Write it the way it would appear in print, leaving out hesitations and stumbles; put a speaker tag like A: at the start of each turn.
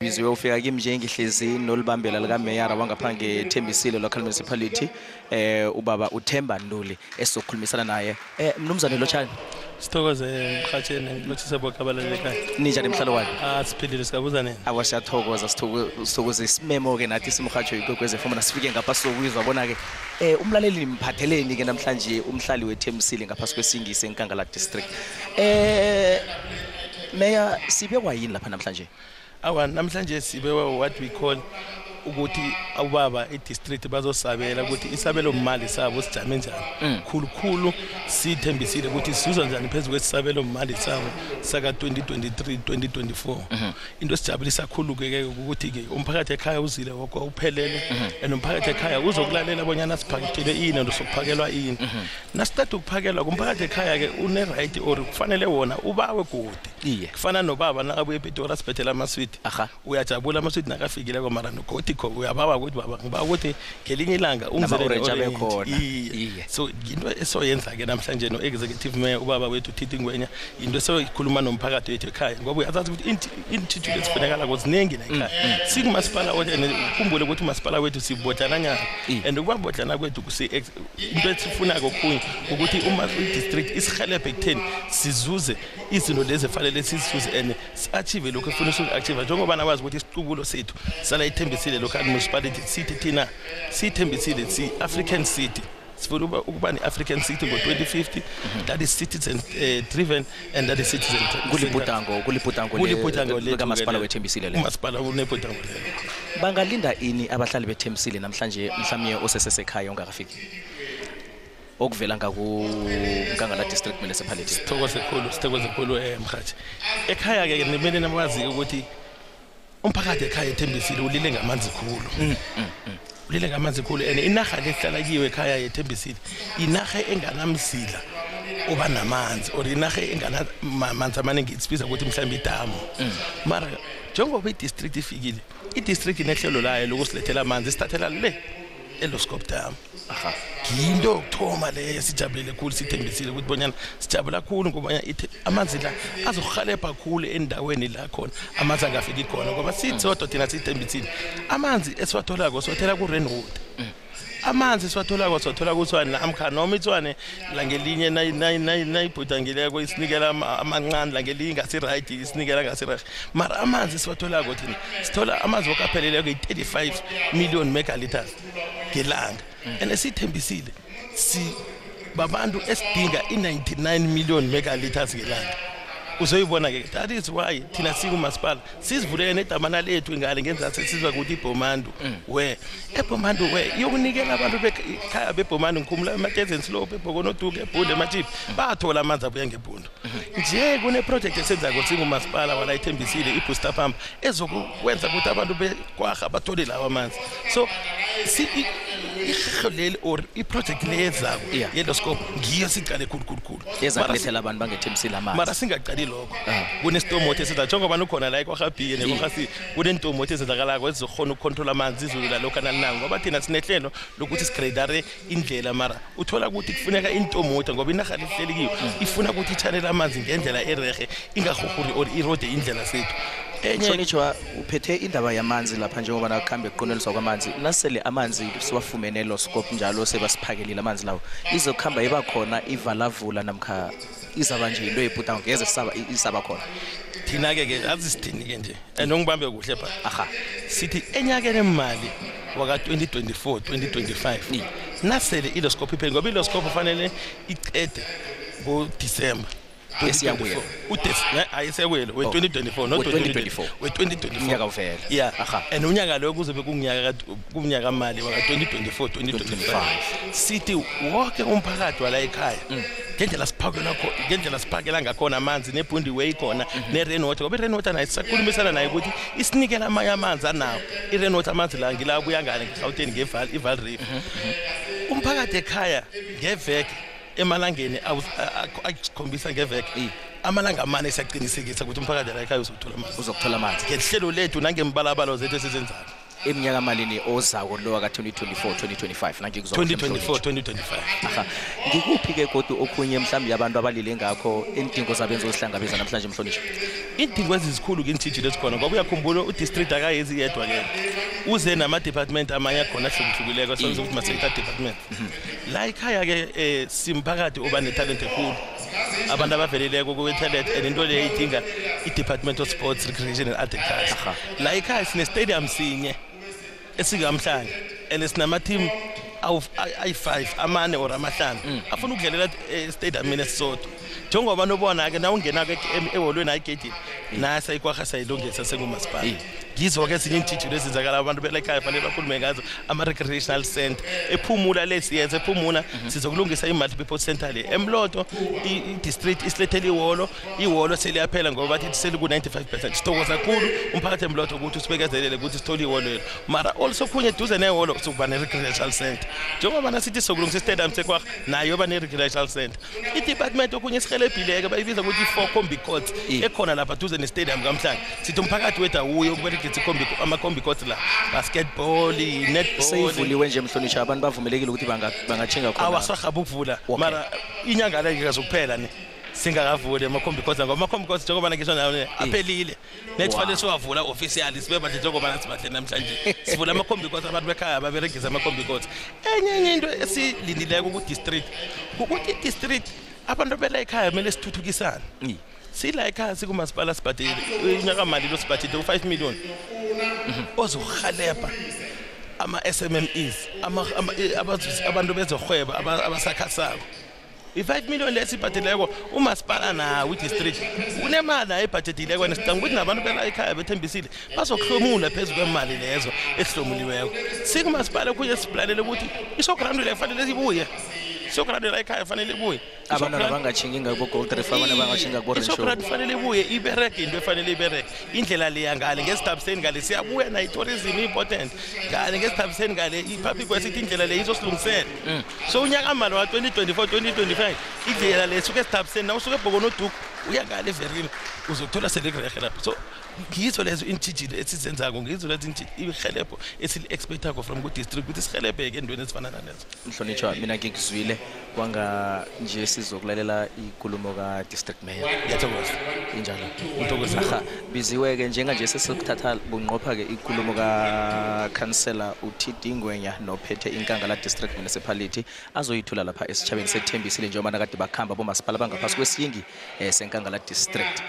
A: ngibiziwe ufika kimi nje ngihlezi nolibambela lika Mayor wangaphange Thembisile local municipality ubaba uThemba Nduli esokhulumisana naye mnumzane Lotshani
B: Sithokoze mkhatsheni lothise bokabaleleka
A: ninjani emhlalo wani
B: siphilile sikabuza nini
A: awasiyathokoza sithokoze isimemo ke nathi simhatsho ikwekweze foma nasifike ngaphasi sokwizwa bona ke umlaleli mphatheleni ke namhlanje umhlali weThembisile ngaphasi kwesingisi eNkangala district Mayor sibe kwayini lapha namhlanje
B: namhlanje sibe what we call ukuthi awubaba e-district bazosabela ukuthi isabelo mali sabo sijame njani khulukhulu sithembisile ukuthi sizwa njani phezulu kwesabelo mali sabo saka 2023 2024 into esijabulisa kakhulu ke ukuthi ke umphakathi ekhaya uzile wonke uphelele and umphakathi ekhaya uzokulalela abonyana siphakethelwe ini nosokuphakelwa ini nasithatha ukuphakelwa kumphakathi ekhaya ke une right or kufanele wona ubawe godi kufana nobaba nakabuye ePitori asibethela amaswiti uyajabula amaswiti nakafikile kwamara nogodi uyababa ukuthi baba ngiba ukuthi ngelinye ilanga
A: umzele khona
B: so into esoyenza ke namhlanje no executive mayor ubaba wethu Thithi Ngwenya into esoyikhuluma nomphakathi wethu ekhaya ngoba uyazazi ukuthi intuthu lesifunekala kozinengi la ekhaya sikumasipala wethu ukhumbule ukuthi umasipala wethu sibodlana nyana and ukubabodlana kwethu into esifuna kokhunye ukuthi uma i-district isihelebhe ekutheni sizuze izinto lezi efanele sizizuze and achieve lokho efuna uku-achieve njengoba nawazi ukuthi isiqubulo sethu sala ithembisile local municipality sithi thina sithembisile si-African city sifuna ukuba ne-African city ngo-2050 that is citizen driven and that is citizen
A: kulibhudango likamasipala weThembisile le
B: umasipala unebhudango lelo
A: bangalinda ini abahlali beThembisile namhlanje mhlawumnye osesesekhaya ongakafiki okuvela ngakuNkangala district municipality
B: sithokoze khulu mkhathi ekhaya ke nimele namazi ukuthi umphakathi ekhaya eThembisile ulile ngamanzi khulu ulile ngamanzi khulu and inaga lehlala kiwe ekhaya eThembisile inaga enganamzila oba namanzi or inaga enganamanzi amaningi isibiza ukuthi mhlawumbe idamu mara njengoba i-district ifikile i-district inehlelo layo lokusilethela amanzi sithathela le eLoskop Dam into yokuthoma le sijabulele khulu sithembisile ukuthi bonyana sijabula khulu ngoba amanzi la azokuhalepha khulu endaweni la khona amanzi angafiki khona ngoba sithodo thina sithembisile amanzi esiwatholako siwathela ku-Rainwater amanzi siwathola kuTshwane la amkhana noma iTshwane la ngelinye nayibhudangileko isinikela amancane la ngelinye ngasi-right isinikela ngasi-right mara amanzi siwatholako thina sithola amanzi okapheleleko yi-35 million megaliters ngelanga and esithembisile babantu esidinga i-99 million megaliters ngelanga uzoyibona ke that is why thina sikumasipala sizivulele nedamana lethu ngale ngenzathu sizwa ukuthi iBhomandu eBhomandu yokunikela abantu bekhaya beBhomandu ngikhumula eMatezeni Slope eBhokonoduke eBhule eMachipi bathola amanzi abuya ngeBhundu nje kune project esenzako singumasipala wala ithembisile iBooster Pump ezokwenza ukuthi abantu bekwagga bathole lawa amanzi so ihlolele or iproject lezako yeLoskop ngiyo siqale khulu
A: yezakulethela abantu bangethembisile amanzi
B: mara singaqali lokho kunesitomoto esiza njengoba ukhona la eKwaGabhiye neKwaGasi kunentomoto ezenzakalako ezizokhona ukucontrol amanzi izulu la lokho nalinanga ngoba thina sinehlelo lokuthi sigradare indlela mara uthola ukuthi kufuneka intomoto ngoba inaga lihleli kiyo ifuna ukuthi i-channel amanzi ngendlela erehe ingahuhuri or irode indlela sethu
A: Sonitshwa uphethe indaba yamanzi lapha njengoba nakukhambe kuqoneliswa kwamanzi nasele amanzi siwafumene eLoskop njalo sebasiphakelile amanzi lawo izokuhamba iba khona ivalavula namkha izaba nje into ebhudango ngeze isaba khona
B: thina ke azisithini ke nje nongibambe kuhle pha sithi enyakeni emali waka 2024 2025 nasele iLoskop ipheli ngoba iLoskop kufanele iqede ngoDisemba
A: esiyabuya
B: ayisewele we2024 not 2024 we2024
A: unyaka uvela
B: and unyaka lo kuzobe kumnyaka mali waka 2024 2025 sithi wonke umphakathi wala ekhaya ngendlela siphakela ngakhona amanzi neBhundi Way khona neRainwater ngoba iRainwater nayo sisakhulumisana naye ukuthi isinikela amanye amanzi anawo iRainwater amanzi la ngila buya ngane ngeGauteng ngeVaal River umphakathi ekhaya ngeveke emalangeni ayisikhombisa ngeveke amalanga amane siyaqinisekisa ukuthi umphakathi la ekhaya uzokuthola amanzi
A: ngehlelo
B: lethu nangembalabalo zethu esizenzayo
A: eminyaka malini ozako lo ka 2024 2025 nangikuzwa
B: 2024 2025
A: aha ngikuphi ke kodwa okhunye mhlawumbe yabantu abalile ngakho indingo zabenza osihlangabeza namhlanje Mhlonishwa
B: indingo ezizikhulu ke intshijilo esikhona ngoba uyakhumbula udistrict akayezi yedwa ke uze nama department amanye akhona ahlukulekileko sonke ukuthi ma-sector department la ikhaya ke simphakathi oba netalent ekhulu abantu abaveleleko kwe-talent and into leyo idinga i-department of sports recreation and agriculture la ikhaya sine-stadium sinye esikamhlanga and sinama-team ayi-5 amane or amahlanu afuna ukudlalela stadium mina esisodwa njengoba nobona-ke na ungena-ke eholweni ayigedini nasa ikwaha sayilungisa sengumasipala ngizo-ke ezinye iintshijilo ezenzakala abantu belekhaya fanele bakhulume ngazo ama-recreational center ephumula lesiyenza ephumula sizokulungisa i-multipurpose center le emloto i-district isilethele ihholo seliyaphela ngoba bathi seliku-95%. Sithokoza kakhulu umphakathi emloto ukuthi usibekezelele ukuthi sithole ihholo lelo mara also khunye eduze nehholo sokuba ne-recreational center njengoba nasithi sokulungisa istadium sekwaha nayo yoba ne-recreational center i-department okhunye esihelebhileke bayibiza ukuthi i-4 combi courts ekhona lapha duze ne-stadium kamhlanga sithi umphakathi wethu awuye ukuberegisa ama-combi courts la basketball netball
A: seyivuliwe nje Mhlonishwa abantu bavumelekile ukuthi bangatshinga khona
B: awasahaba ukuvula mara inyanga le ikazokuphela ne singakavuli ama-combi courts ngoba ama-combi courts njengoba ngisho nayo aphelile nethi fanele siwavula officially sibe badle njengoba sibahle namhlanje sivula ama-combi courts abantu bekhaya baberegisa ama-combi courts enye into esilindileko ku-district ukuthi i-district abantu bela ekhaya kumele sithuthukisane sila ekhaya sikumasipala sibhadile inyaka mali lo sibhadile u5 million ozohaleba ama-SMMEs abantu bezohweba abasakhasako i5 million lesibhadileko umasipala nawo i-district unemali ayibhadileko and sidinga ukuthi nabantu bela ekhaya bethembisile bazokuhlomula phezu kwemali lezo esihlomuliweko sikumasipala kunye siplanele ukuthi isogrando le kufanele ibuye isogrando la ekhaya fanele ibuye
A: abantu abangatshingi ngabo gold reef abantu abangatshinga ku range
B: isogrando fanele ibuye ibereke into efanele ibereke indlela le yangale ngesithabiseni ngale siyabuya na i-tourism important ngale ngesithabiseni ngale i-public wesithi indlela le izosilungisela so unyaka mali wa 2024 2025 indlela le suke esithabiseni na usuke ebhokonoduku uya ngale everini uzothola selekurege lapho so ngizo lezo intshijilo esizenzako ngizo lezo ihelebho esili-expectako from ku-district ukuthi sihelebheke endweni ezifana nalezo
A: Mhlonishwa mina ngikuzwile kwanga nje sizokulalela ikulumo ka-district mayor
B: ngiyathokoza
A: injalo
B: ngithokoza
A: biziwe-ke njenganje sesikuthatha bunqopha-ke ikulumo ka-councillor uTD Ngwenya nophethe inkangala district municipality azoyithula lapha esitshabeni sethembisile njengoba nakade bakhamba bomasipala bangaphasi kwesiyingi senkangala district.